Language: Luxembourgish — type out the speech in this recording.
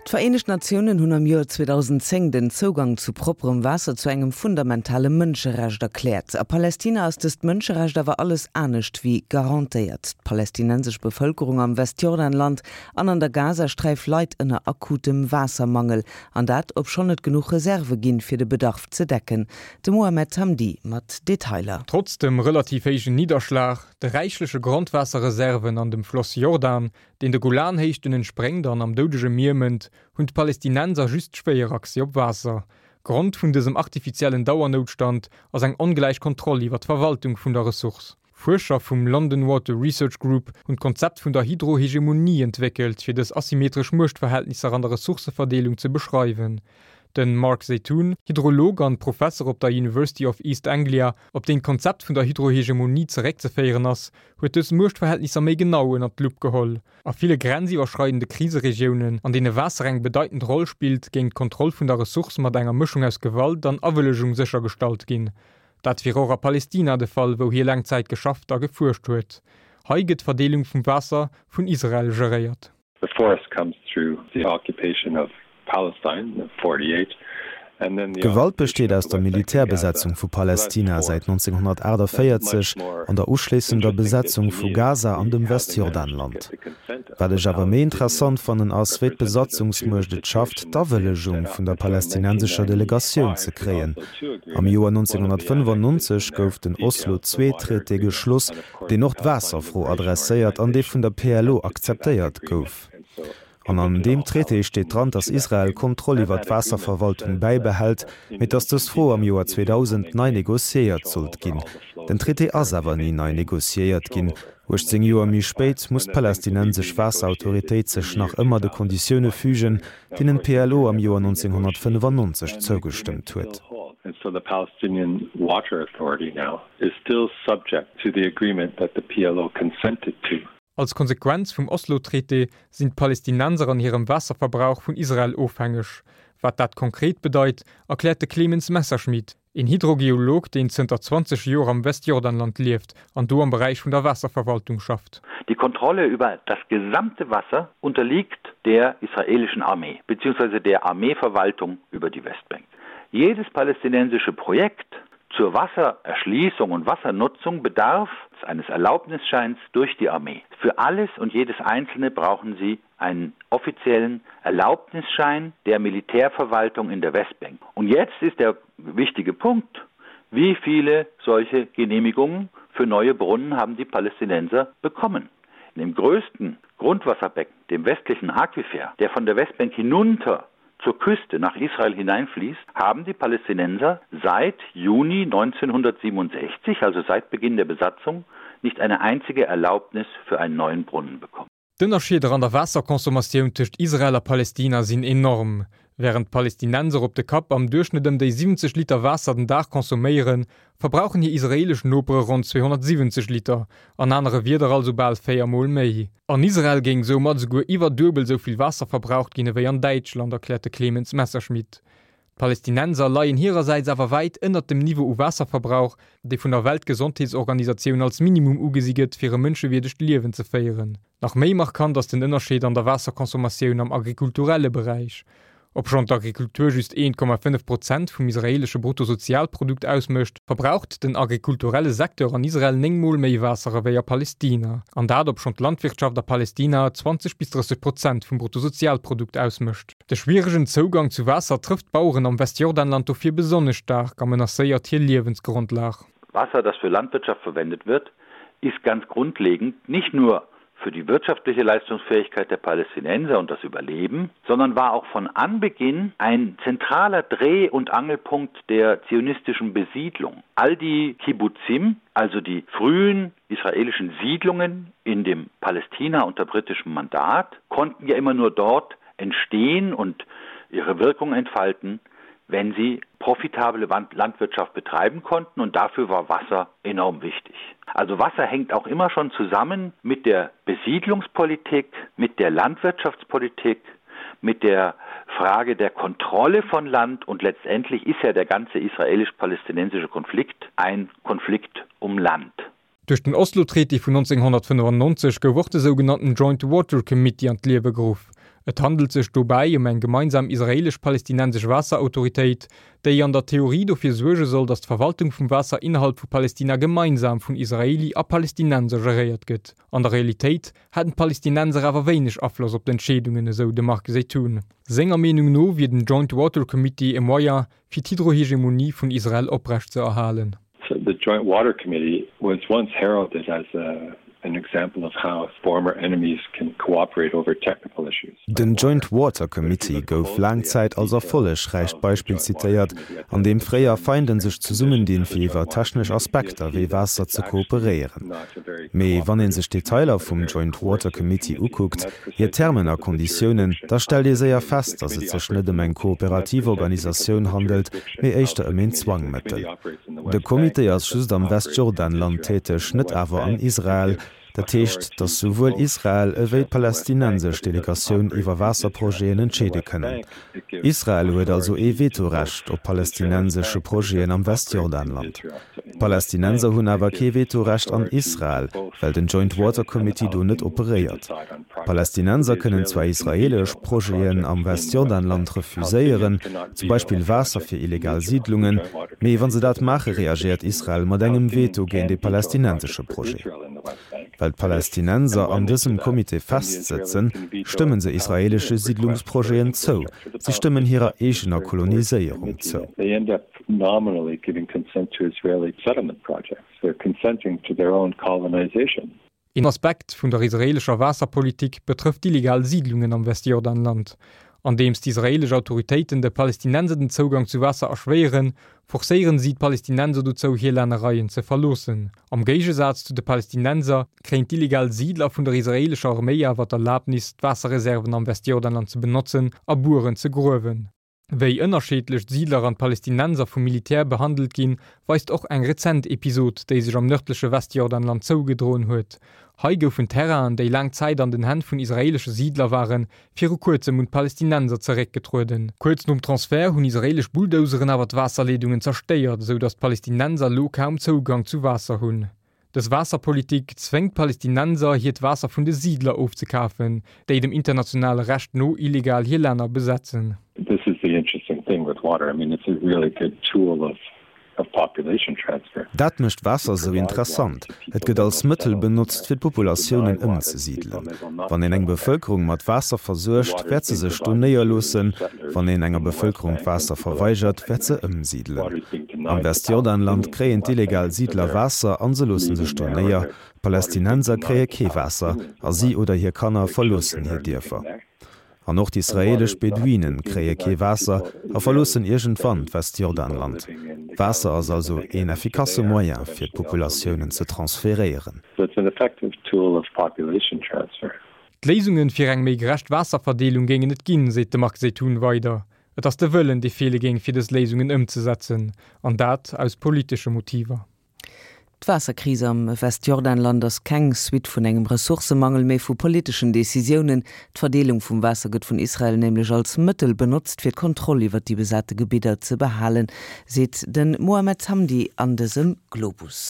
D'Vereenegt Natiounen hunn am Joer 2010 den Zougang zu propperem Waasser zu engem fundamentale Mënscherecht erkläert. A Palästina ass dëst Mënscherecht awer alles anescht wéi garantéiert. D'palästinensesch Bevëlkerung am Westjordanland an an der Gazasträif leit ënner akutem Waassermangel, an dat obschonn et genuch Reserve ginn, fir de Bedarf ze decken. De Mohamed Hamdi mat Detailer. Trotz dem relativ héijen Nidderschlag, de räichleche Grondwaasserreserven an dem Floss Jordan, deen de Golanhéichten entspréngt an am Doudege Mier mënnt, hunn d'Palästinenser just schwéier Accès op Waasser. Grond vun dësem artifiziellen Dauernoutstand ass eng ongläich Kontroll iwwer d'Verwaltung vun der Ressource. Fuerscher vum London Water Research Group hunn d'Konzept vun der Hydrohegemonie entwéckelt, fir dës asymmetresch Muechtverhältnisser an der Ressourcëverdeelung ze beschreiwen. De Mark Zeitoun, Hydrolog an Professer op der University of East Anglia, op deen d'Konzept vun der Hydrohegemonie zeréckzeféieren ass, huet dës Muechtverhältnisser méi genau ënnert d'Lupp geholl. A ville grenziwwerschreidende Kriseregiounen, an deene Waasser eng bedeitend Roll spillt, géing d'Kontroll vun der Ressource mat enger Mëschung aus Gewalt an Awëllegung séchergestallt ginn. Dat wier och a Palestina de Fall, wou hie laang Zäit geschafft a gefuerscht huet. Hei gëtt d'Verdeelung vum Waasser vun Israel geréiert. The force comes through the occupation of Palestine in 48 and then the D'Gewalt besteet aus der Militärbesetzung vu Palästina säit 1948 an der uschléissender Besetzung vu Gaza an dem Westjordanland. Wat ech awer méi interessant fannen ass, wéi d'Besatzungsmuecht et schafft, d'Awëllegung vun der palästinensescher Delegatioun ze kréien. Am Joer 1995 gouf den Oslo-II-Traité geschloss, deen och d'Waasserfro adresséiert an dee vun der PLO akzeptéiert gouf. An an deem Traité steet dran, datt Israel d'Kontroll iwwer d'Waasserverwaltung bäibehält, mee datt dës Fro am Joer 2000 nei negociéiert sollt ginn. Den Traité ass awer ni nei negociéiert ginn. 18 Joer méi spéit muss d'palästinensesch Waasserautoritéit sech nach ëmmer de Konditioune fügen, deenen d'PLO am Joer 1995 zougestëmmt huet. Is still subject to the agreement that the PLO consented to. Als Konsequenz vum Oslo-Traité sinn d'Palästinenser an hirem Waasserverbrauch vun Israel ofhängeg. Wat dat konkret bedeit, erkläert de Clemens Messerschmid, een Hydrogeolog, deen zënter 20 Joer am Westjordanland lieft an do am Beräich vun der Waasserverwaltung schafft. Die Kontrolle über das gesamte Wasser unterliegt der israelischen Armee beziehungsweise der Armeeverwaltung über die Westbank. Jedes palästinensische Projekt Zur Wassererschließung und Wassernutzung bedarf eines Erlaubnisscheins durch die Armee. Für alles und jedes Einzelne brauchen sie einen offiziellen Erlaubnisschein der Militärverwaltung in der Westbank. Und jetzt ist der wichtige Punkt, wie viele solche Genehmigungen für neue Brunnen haben die Palästinenser bekommen? In dem größten Grundwasserbecken, dem westlichen Aquifer, der von der Westbank hinunter zur Küste nach Israel hineinfließt, haben die Palästinenser seit Juni 1967, also seit Beginn der Besatzung, nicht eine einzige Erlaubnis für einen neuen Brunnen bekommen. D'Ënnerscheeder an der Waasserconsommatioun tëscht Israel a Palestina sinn enorm. Wärend d'Palestinenser op de Kapp am Duerchschnëtt ëm déi 70 Liter Waasser den Dag consomméieren, verbrauchen hir israeelesch Nopere ronn 270 Liter, an anere Wierder also bal 4 Mol méi. An Israel géing soumat esouguer iwwer duebel esou vill Waasser verbraucht ginn ewéi an Däitschland, erkläert de Clemens Messerschmidt. D'Palästinenser leien hirersäits awer wäit ënnert dem Niveau u Waasserverbrauch, dee vun der Weltgesondheetsorganisatioun als Minimum ugesi gëtt, fir e mënschewierdegt Liewen ze féieren. Nach méi markant ass den Ënnerscheed an der Waasserconsommatioun am agrikulturelle Beräich. Obschonn d'Agrikultur just 1,5 Prozent vum israeelesche Bruttosozialprodukt ausmécht, verbraucht den agrikulturelle Secteur an Israel 9 Mol méi Waasser ewéi a Palestina. An dat obschonn d'Landwirtschaft a Palestina 20 bis 30 Prozent vum Bruttosozialprodukt ausmécht. De schwieregen Zougang zu Waasser trëfft d'Baueren am Westjordanland dofir besonnesch staark a menacéiert hir Liewensgrondlag. Wasser, das für Landwirtschaft verwendet wird, ist ganz grundlegend nicht nur für die wirtschaftliche Leistungsfähigkeit der Palästinenser und das Überleben, sondern war auch von Anbeginn ein zentraler Dreh- und Angelpunkt der zionistischen Besiedlung. All die Kibbutzim, also die frühen israelischen Siedlungen in dem Palästina unter britischem Mandat, konnten ja immer nur dort entstehen und ihre Wirkung entfalten, wenn sie profitable Landwirtschaft betreiben konnten und dafür war Wasser enorm wichtig. Also Wasser hängt auch immer schon zusammen mit der Besiedlungspolitik, mit der Landwirtschaftspolitik, mit der Frage der Kontrolle von Land und letztendlich ist ja der ganze israelisch-palästinensische Konflikt ein Konflikt um Land. Duerch den Oslo-Traité vun 1995 gouf och de sougenannten Joint Water Committee an d'Liewe geruff. Et handelt sech dobäi ëm eng gemeinsam israeelesch-palestinensesch Waasserautoritéit, déi an der Theorie dofir suerge soll, datt d'Verwaltung vum Waasser innerhalb vu Palestina gemeinsam vun Israeli a Palestinenser geréiert gëtt. An der Realitéit hätten d'Palestinenser awer wéineg Afloss op d'Entscheedungen, esou de Marc Zeitoun. Senger Meenung no wier den Joint Water Committee e Moyen, fir d'Hydrohegemonie vun Israel oprecht ze erhalen. The Joint Water Committee was once heralded as a an example of how former enemies can cooperate over technical issues. Den Joint Water Committee gouf laang Zäit als erfollegräicht Beispill zitéiert, an deem fréier Feinden sech zesummendinn, fir iwwer technesch Aspekter wéi Waasser ze kooperéieren. Mee wann ee sech d'Detailer vum Joint Water Committee ukuckt, hir Termen a Konditiounen, da stellt ee séier fest, datt et sech net ëm eng kooperativ Organisatioun handelt, mee éischter ëm een Zwangmëttel. De Comité ass just am Westjordanland täteg, net awer an Israel. Dat heescht, datt souwuel Israel ewéi d'palästinensesch Delegatioun iwwer Waasserprojeten entscheede kënnen. Israel huet also ee Vetorecht op palästinensesche Projeten am Westjordanland. D'Palästinenser hunn awer kee Vetorecht an Israel, well den Joint Water Committee do net operéiert. D'Palästinenser kënnen zwar israeelesch Projeten am Westjordanland refuséieren, zum Beispill Waasser fir illegal Siidlungen, mee wa se dat maache reagéiert Israel mat engem Veto géint ee palästinensesche Projet. Well d'Palästinenser an dësem Comité festsëtzen, stëmmen se israeelesche Siidlungsprojeten zou, si stëmmen hirer eegener Koloniséierung zou. Een Aspekt vun der israeelescher Waasserpolitik betrëfft d'illegal Siidlungen am Westjordanland. Andeems d'israeelesch Autoritéiten de Palästinenser den Zougang zu Waasser erschwéieren, forcéieren si d'Palästinenser dozou, hir Lännereien ze verloossen. Am Géigesaz zu de Palästinenser kréien d'illegal Siidler vun der israeelescher Arméi awer d'Erlabnis, d'Waasserreserven am Westjordanland ze benotzen a Bueren ze gruewen. Wéi ënnerscheedlech d'Siidler an d'Palästinenser vum Militär behandelt ginn, weist och eng rezent Episod, déi sech am nërdleche Westjordanland zougedroen huet. Hei goufen Terrainen, déi laang Zäit an den Hänn vun israeelesche Siidler waren, viru kuerzem un d'Palästinenser zeréckgetrueden. Kuerz nom Transfert hunn israeelesch Bulldozeren awer d'Waasserleedungen zerstéiert, esou datt d'Palästinenser elo kaum Zougang zu Waasser hunn. Dës Waasserpolitik zwéngt d'Palästinenser, hiert Waasser vun de Siidler ofzekafen, déi dem internationale Recht no illegal hir Länner besetzen. This is the interesting thing with water, I mean it's a really good tool of of population transfer. Dat mécht Waasser esou interessant, et gëtt als Mëttel benotzt, fir d'Populatiounen ëmzesidelen. Wann een eng Bevëlkerung mat Waasser versuergt, wäert se sech do néierloossen. Wann een enger Bevëlkerung d'Waasser verweigert, wäert se ëmsidelen. Am Westjordanland kréien d'illegal Siidler Waasser an se loosse sech do néier. D'Palästinenser kréie kee Waasser a si oder hir Kanner verloossen hir Dierfer. An och d'israeelesch Beduinen kréie kee Waasser a verloossen iergendwann d'Westjordanland. Waasser ass also een effikasse Moyen fir d'Populatiounen ze transferéieren. D'Léisunge fir eng méi gerecht Waasserverdeelung géingen et ginn, seet de Marc Zeitoun weider. Et ass de Wëllen, dee feele géing, fir dës Léisungen ëmzesetzen, an dat aus politesche Motiver. D'Waasserkris am Westjordanland ass keng Suite vun engem Ressourcemangel, mee vu politeschen Decisiounen. D'Verdeelung vum Waasser gëtt vun Israel nämlech als Mëttel benotzt, fir d'Kontroll iwwer déi besate Gebidder ze behalen, seet de Mohamed Hamdi an dësem Globus.